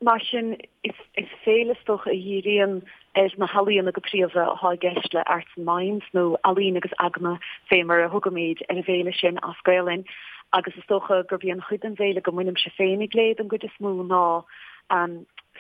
Mar sin, is féile is dócha a dhíríonn ar na healaíona go príomha atá i gceist le Arts and Minds, nó Ealaín agus Eagna fé mar a thugaimid ar an bhféile sin as Gaolainn, agus is dócha gurb í an chuid den bhféile go mbainimse féinig léi den gcuid is mó ná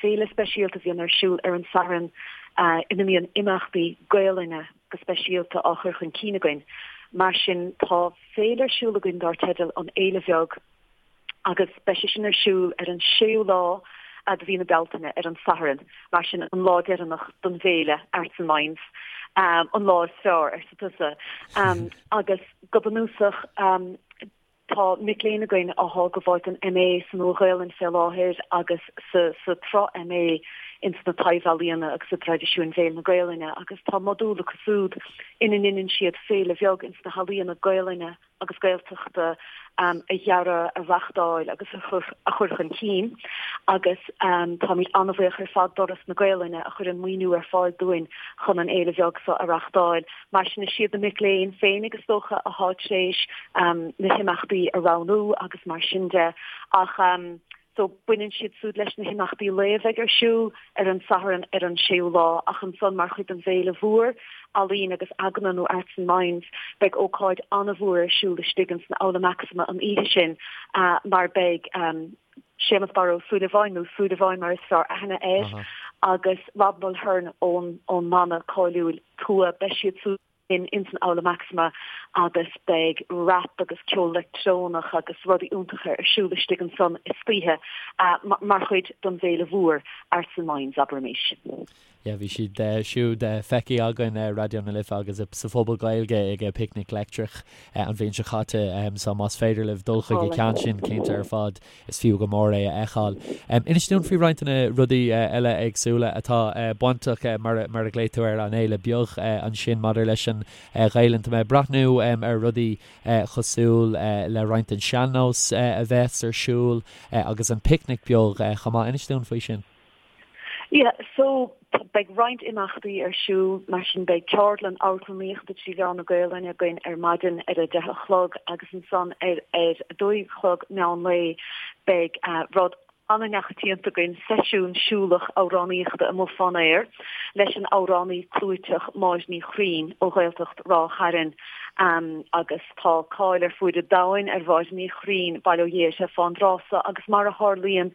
féile speisialta a bhíonn ar siúl ar an Satharn ina mbíonn imeachtaí Gaolainne go speisialta á chur chun cinn againn. Mar sin, tá féile ar siúl againn dár teideal An Fhéile Bheag, agus beidh sé sin ar siúl ar an séú lá de mhí na Bealtaine, ar an Satharn, mar sin an lá deireanach don bhféile Arts and Minds, an lá is fearr, arsa tusa. Agus go bunúsach, tá mic léinn againn athá ag gabháil don MA sa Nua-Ghaolainn fé láthair agus sa sa tsraith MA ins na Taibh-Ealaíona agus i dTraidisiúin Bhéil na Gaolainne agus tá modúl acu súd ina ndeineann siad féile bheag ins na healaíona Gaolainne agus Gaeltachta a dhearadh, a reachtáil agus a chur chun cinn agus táimid an-bhuíoch ar fad d'Fhoras na Gaelainne a chuireann maoiniú ar fáil dúinn chun an fhéile bheag seo a reachtáil. Mar sin is iad na mic léinn féinig is dócha athá tar éis na himeachtaí a roghnú agus mar sin de ach So baineann siad súd leis na himeachtaí lae a bheidh ar siúl ar an Satharn ar an séú lá ach ansan mar chuid den bhféile mhór, Ealaín agus Eagna nó Arts and Minds, beidh ócáid an-mhór ar siúl istigh ins an Aula Maxima an oíche sin mar beidh Séamus Barra Ó Súilleabháin nó Súilleabháin mar is fearr aithne air agus Rob Mulhern ón ón mbanna cáiliúil Tua, beidh siad súd in ins an Aula Maxima agus beidh rap agus ceol leictreonach agus rudaí iontacha ar siúl istigh ansan istoíche mar chuid don bhféile mhór Arts and Minds, abraimis. Yeah, bhí siad siúd feicthe againn ar Raidió na Life agus sa Phuball Gaeilge ag Picnic Leictreach an bhliain seo caite so más féidir libh dul chuig an ceann sin cinnte ar fad Is fiú go mór é a fheiceáil. Inis dúinn faoi roinnt de na rudaí eile éagsúla atá bainteach, mar a ghlaoigh tú air, an fhéile beag ansin maidir leis an Ghaelainn. Tá mé ag breathnú ar rudaí cosúil le roinnt den sean-nós a bheas ar siúl agus an picnic beag chomh maith. Inis dúinn faoi sin. Yeah, so beidh roinnt imeachtaí ar siúl, mar sin beidh ceardlann amharclannaíochta trí mheán na Gaelainne againn ar maidin ar a deich a chlog agus ansan ar ar a dó a chlog meán lae beidh rud an-neachoitianta againn, seisiún siúlach amhránaíochta amuigh fán aer leis an amhránaí clúiteach Máire Ní Churraoin ó Ghaeltacht Ráth Chairn agus Tá cáil ar fuaid an domhain ar Mháire Ní Churraoin, bail ó Dhia uirthi, fán dtráth so agus mar a tharlaíonn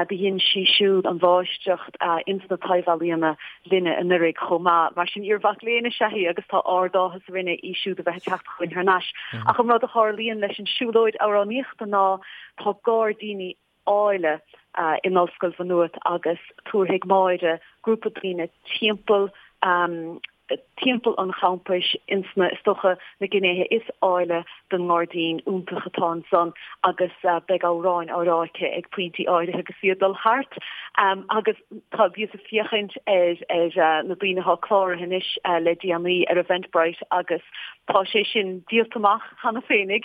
do dhein sí siúd an mháistreacht ins na taibh-ealaíona linne anuraidh chomh maith. Mar sin iar-mhac léinn is ea í agus tá ard-áthas orainne í siúd a bheith ag teacht chugainn thar n-ais. Ach an rud a tharlaíonn leis an siúlóid amhránaíochta ná tá gairdíní áille in Ollscoil Mhaigh Nuat agus tabharfaidh Máire grúpa daoine timpeall timpeall an champais ins na, is dócha, na gnéithe is áille den ngairdín iontach atá ansan agus beidh amhráin á rá aici ag pointí áirithe agus í ag dul thart agus tá, bhíos ag féachaint ar ar na daoine atá cláraithe anois le déanaí ar Eventbrite agus tá sé sin díolta amach cheana féinig.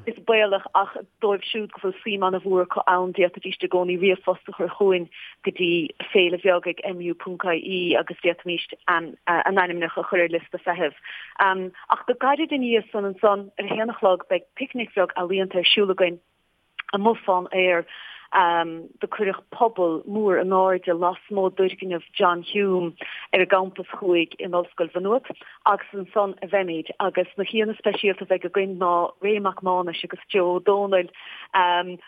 Is baolach ach dóibh siúd go bhfuil suim an-mhór acu ann, d'fhéadfaidís i gcónaí ríomhphost a chur chugainn go dtí féile bheag ag mu.ie agus d'fhéadfaimis a n-ainmneacha a chur ar liosta feithimh. Ach go gairid ina dhiaidh san ansan, ar a haon a chlog, beidh picnic bheag ealaíonta ar siúl againn amuigh fán aer. Do cuireadh puball mór in airde lasmuigh d'fhoirgneamh John Hume ar an gcampas thuaidh in Ollscoil Mhaigh Nuat. Agus ansan a bheimid, agus na haíonna speisialta a bheidh againn ná Ray Mac Mánais agus Joe Ó Dónaill,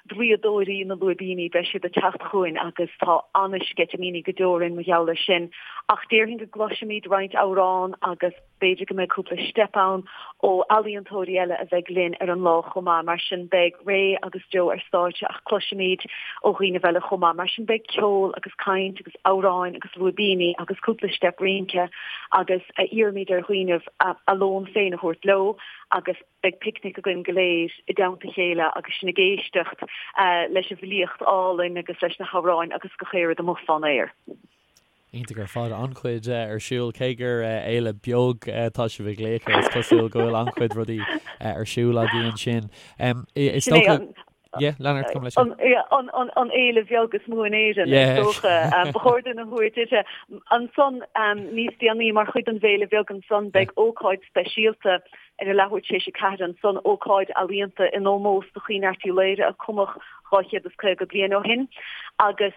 draíodóirí na lúibíní, beidh siad ag teacht chugainn agus tá an-sceitimíní go deo orainn mar gheall air sin. Ach déarfainn go gcloisfimid roinnt amhrán agus b'fhéidir go mbeidh cúpla steip ann ó ealaíontóirí eile a bheidh linn ar an lá chomh maith. Mar sin beidh Ray agus Joe ar stáitse ach cloisfimid ó dhaoine eile chomh maith. Mar sin beidh ceol agus caint agus amhráin agus lúibíní agus cúpla steip rince agus iarraimid ar dhaoinibh a lón féin a thabhairt leo agus beidh picnic againn go léir i dteannta a chéile agus sinn ag éisteacht leis an bhfilíocht álainn agus leis na hamhráin agus gach aon rud amuigh fán aer. Iontach ar fad, an-chuid ar siúl. Cé gur fhéile beag atá sibh ag glaoch air, is cosúil go bhfuil an-chuid rudaí ar siúl agaibh ansin. Is dócha. Yeah, lean ort, gabh mo leithscéal. An, an, an fhéile bheag is mó in Éirinn, is dócha. Ba chóir dúinn a thabhairt uirthi. Ansan, níos déanaí, mar chuid den bhFéile Bheag ansan, beidh ócáid speisialta ar a leathuair tar éis a 4 ansan, ócáid ealaíonta in ómós do Chaoin Airt Uí Laoghaire a cumadh 250 bliain ó shin. Agus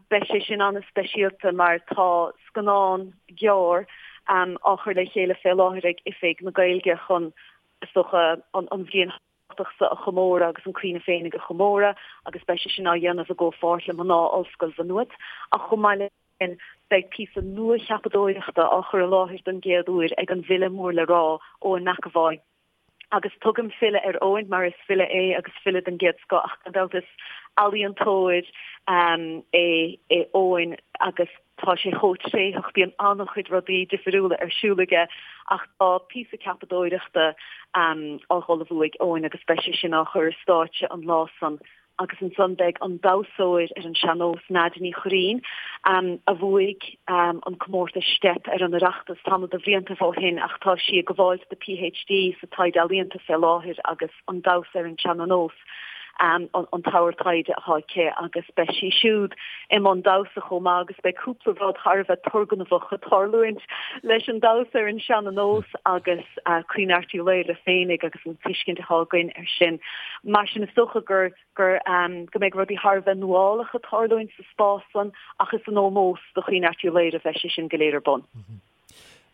beidh sé sin an-speisialta mar tá scannán gearr á chur le chéile fé láthair ag Oifig na Gaeilge chun, is dócha, an bhliain tábhachtach seo a chomóradh agus an Caoineadh féinig a chomóradh agus beidh sé sin á dhéanamh i gcomhpháirt le mná Ollscoil Mhaigh Nuad. Ach chomh maith leis sin, beidh píosa nua-cheapadóireachta á chur i láthair don gcéad uair ag an bhfile mór le rá, Eoin McEvoy. Agus tugaim file ar Eoin mar is file é agus file den gcéad scoth ach gan dabht is ealaíontóir é Eoin agus Tá sé chomh tréitheach, bíonn an-chuid rudaí difiriúla ar siúl aige ach tá píosa ceapadóireachta á ullmhú ag Eoin agus beidh sé sin á chur ar stáitse an lá san agus ansan beidh an damhsóir ar an sean-nós Nadia Ní Churraoin, a bhuaigh an comórtas Steip ar an Oireachtas tamall de bhliantaibh ó shin ach tá sí ag gabháil do PhD sa taighde ealaíonta fé láthair agus an damhsa ar an sean-nós. an t-ábhar taighde atá aici agus beidh sí siúd i mbun damhsa chomh maith agus beidh cúpla rud thar a bheith turgnamhach ag tarlúint leis an damhsa ar an sean-nós agus Caoineadh Airt Uí Laoghaire féinig agus an tuiscint atá againn air sin. Mar sin is dócha gur gur go mbeidh rudaí thar a bheith nuálach ag tarlúint sa spás san ach is in ómós do Chaoineadh Airt Uí Laoghaire a bheidh sé sin go léir ar bun.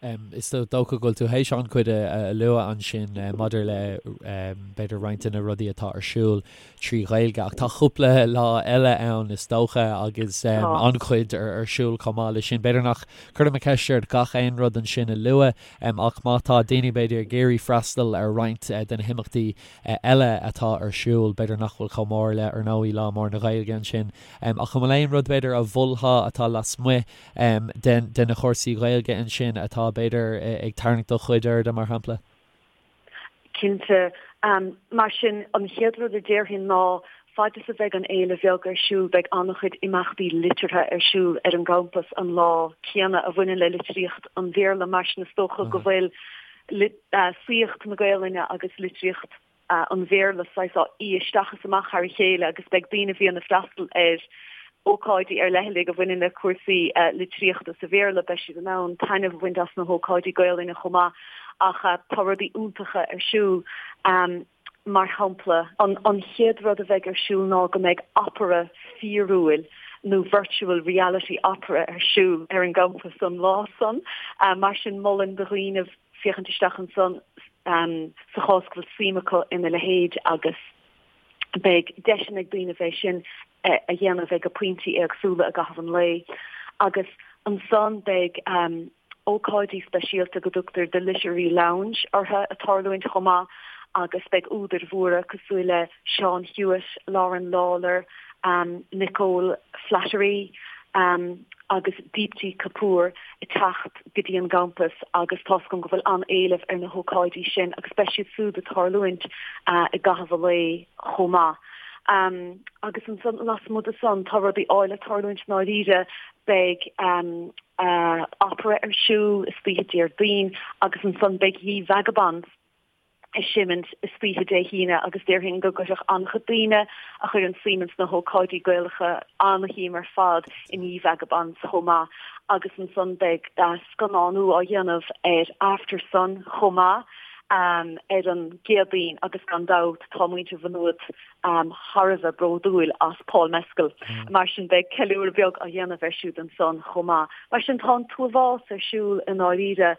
Is dócha go bhfuil tú théis an-chuid a lua ansin maidir le b'fhéidir roinnt de na rudaí atá ar siúl trí Ghaeilge ach tá cúpla lá eile ann is dócha agus an-chuid ar siúl chomh maith leis sin. B'fhéidir nach cuirfidh mé ceist ort gach aon rud ansin a lua ach má tá daoine b'fhéidir ag iarraidh freastal ar roinnt de na himeachtaí eile atá ar siúl, b'fhéidir nach bhfuil chomh mór le ar ndóigh Lá Mór na Gaeilge ansin ach an bhfuil aon rud b'fhéidir a mholfá atá lasmuigh de na cúrsaí Gaeilge ansin atá, b'fhéidir, ag tarraingt do chuid airde, mar shampla? Cinnte. Mar sin, an chéad rud a déarfainn ná, fad is a bheidh an fhéile bheag ar siúl, beidh an-chuid imeachtaí liteartha ar siúl ar an gcampas an lá céanna a bhaineann le litríocht an Bhéarla. Mar sin, is dócha go bhfuil saíocht na Gaelainne agus litríocht an Bhéarla saghas á fhí isteach is amach thar a chéile agus beidh daoine a bhíonn ag freastal ar ócáidí ar leithligh a bhaineann le cúrsaí litríochta sa Bhéarla, beidh siad in ann taitneamh a bhaint as na hócáidí Gaelainne chomh maith ach tá rudaí iontacha ar siúl. Mar shampla, an chéad rud a bheidh ar siúl ná go mbeidh opera fíorúil nó virtual reality opera ar siúl ar an gcampas an lá san. Mar sin molaim do dhaoine féachaint isteach ansan sa chás go bhfuil suim acu ina leithéid agus beidh deiseanna ag daoine é sin a dhéanamh ag pointí éagsúla i gcaitheamh an lae. Agus ansan beidh ócáidí speisialta go dtugtar The Literary Lounge orthu ag tarlúint chomh maith agus beidh údair mhóra cosúil le Seán Hewitt, Lauren Lawlor, Nicole Flattery agus Deepti Kapoor ag teacht go dtí an gcampas agus tá's agam go bhfuil an-éileamh ar na hócáidí sin agus beidh siad súd ag tarlúint i gcaitheamh an lae chomh maith. Agus ansan lasmuigh de san tá rudaí áille ag tarlúint i ndáiríre, beidh opera ar siúl istoíche Déardaoin agus ansan beidh Ye Vagabonds ag seimint istoíche Dé hAoine agus déarfainn go gcuirfeadh an-chuid daoine a chuireann suim ins na hócáidí Gaelacha an-shuim ar fad in Ye Vagabonds chomh maith agus ansan beidh scannánú á dhéanamh ar Aftersun chomh maith ar an gCéadaoin agus gan dabht tá muintir Mhaigh Nuad thar a bheith bródúil as Paul Mescal mar sin beidh ceiliúradh beag á dhéanamh air siúd ansan chomh maith. Mar sin tá an t-uafás ar siúl i ndáiríre.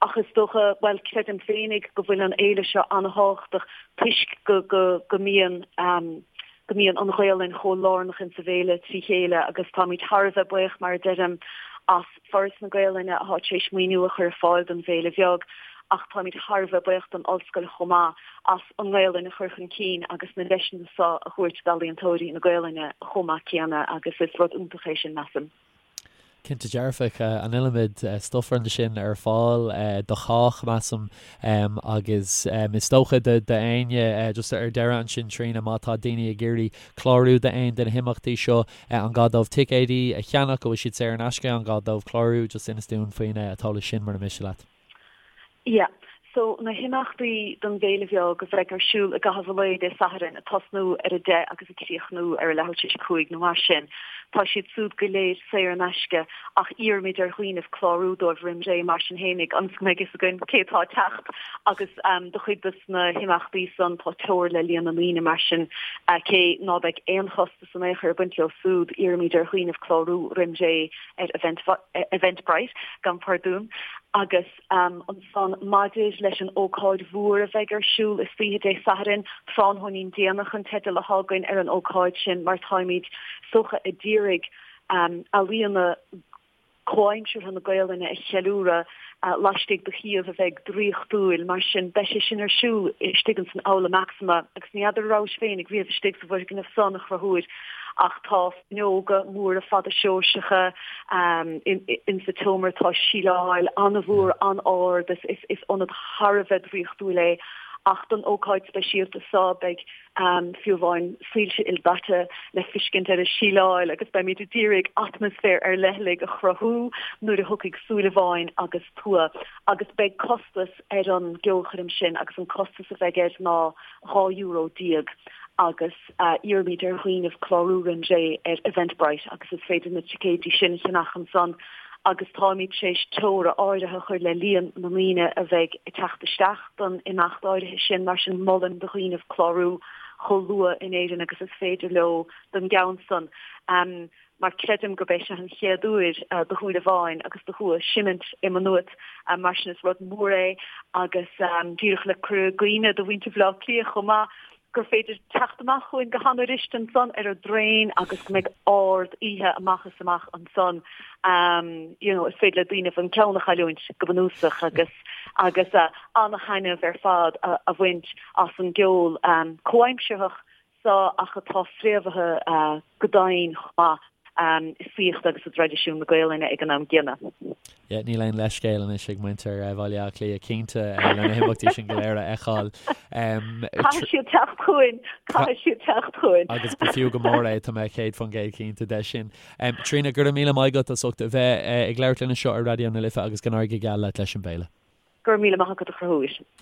Ach is dócha, bhuel, creidim féinig go bhfuil an fhéile seo an-thábhachtach toisc go, go, go mbíonn, go mbíonn an Ghaolainn chomh lárnach insa bhféile trí chéile agus táimid thar a bheith buíoch, mar a deirim, as Foras na Gaolainne atá tar éis maoiniú a chur ar fáil don bhFéile Bheag ach táimid thar a bheith buíoch don Ollscoil chomh maith as an nGaolainn a chur chun cinn agus na deiseanna seo a thabhairt d'ealaíontóirí na Gaolainne chomh maith céanna agus is rud iontach é sin, measaim. Cinnte dearfach, an iliomad stuif ansin ar fáil do chách, measaim, agus is dócha d'éinne, just ar deireadh ansin Tríona, má tá daoine ag iarraidh clárú d'aon de na himeachtaí seo, an gá dóibh ticéidí a cheannach, an bhfuil siad saor in aisce, an gá dóibh clárú, just inis dúinn faoin t-eolas sin mura miste leat. Yeah. so na himeachtaí don bhféile bheag a bheidh ar siúl i gcaitheamh an lae Dé Sathairn, ag tosnú ar a 10 agus ag críochnú ar a leathuair tar éis a 5 nó mar sin, tá siad súd go léir saor in aisce ach iarraimid ar dhaoinibh clárú dóibh roim ré mar sin fhéinig ionas go mbeidh fhios againn cé atá ag teacht agus do chuid dos na himeachtaí san tá teora le líon na ndaoine mar sin cé ná beidh aon chostas in aon chor ag baint leo súd iarraimid ar dhaoinibh clárú roim ré ar Eventbrite, gabhaim pardún, agus. Ansan, maidir leis an ócáid mhór a bheidh ar siúl istoíche Dé Sathairn, Tráthnóinín Déanach an teideal atá againn ar an ócáid sin mar táimid is dócha a d'iarraidh ealaíona comhaimseartha na Gaolainne a cheiliúradh laistigh de shuíomh a bheidh draíochtúil. Mar sin, beidh sé sin ar siúl istigh ins an Aula Maxima agus ní fheadar an rabhais féinig riamh istigh sa bhfoirgneamh san, a Chonchúir, ach tá fuinneoga móra fada Seoirseacha insa tseomra, tá síleáil an-mhór an-ard, is ionad thar a bheith draíochtúil é. Ach don ócáid speisialta seo beidh fiú amháin soilse ildaite le fiscint ar an síleáil agus beimid a d'iarraidh atmaisféar ar leithligh a chruthú nuair a thiocfaidh Súilleabháin agus Tua. Agus beidh costas ar an gceolchoirm sin agus an costas a bheidh air ná €12 agus iarraimid ar dhaoinibh clárú roim ré ar Eventbrite agus is féidir na ticéidí sin a cheannach ansan agus táimid tar éis teora áirithe a chur le líon na ndaoine a bheidh ag teacht isteach don imeacht áirithe sin, mar sin molaim do dhaoinibh clárú chomh luath in Éirinn agus is féidir leo don gceann san. Mar creidim gurb é seo an chéad uair do Shúilleabháin agus do Thua seimint i Maigh Nuat, mar sin is rud mór é agus díreach le cur i gcuimhne do mhuintir Bhaile Átha Cliath chomh maith gur féidir teacht amach chugainn go han-fhuirist ansan ar an dtraein agus go mbeidh ard oíche amach is amach ansan. You know, is féidir le daoinibh an ceann a chailliúint go bunúsach agus agus an-thaitneamh ar fad a bhaint as an gceol comhaimsearthach seo ach atá fréamhaithe go domhain chomh maith i saíocht agus i dtraidisiún na Gaolainne ag an am gcéanna. Yeah, níl aon leithscéal anois ag muintir Bhaile Átha Cliath, cinnte, le na himeachtaí sin go léir a fheiceáil. Caithfidh siad teacht chugainn, caithfidh siad teacht chugainn. Agus ba fiú go mór é, tá mé 100% cinnte de sin. Tríona, go raibh míle maith agat as ucht a bheith ag labhairt linn anseo ar Raidió na Life agus go n-éirí go geal leat leis an bhféile. Go raibh míle maith agat a Chonchúir.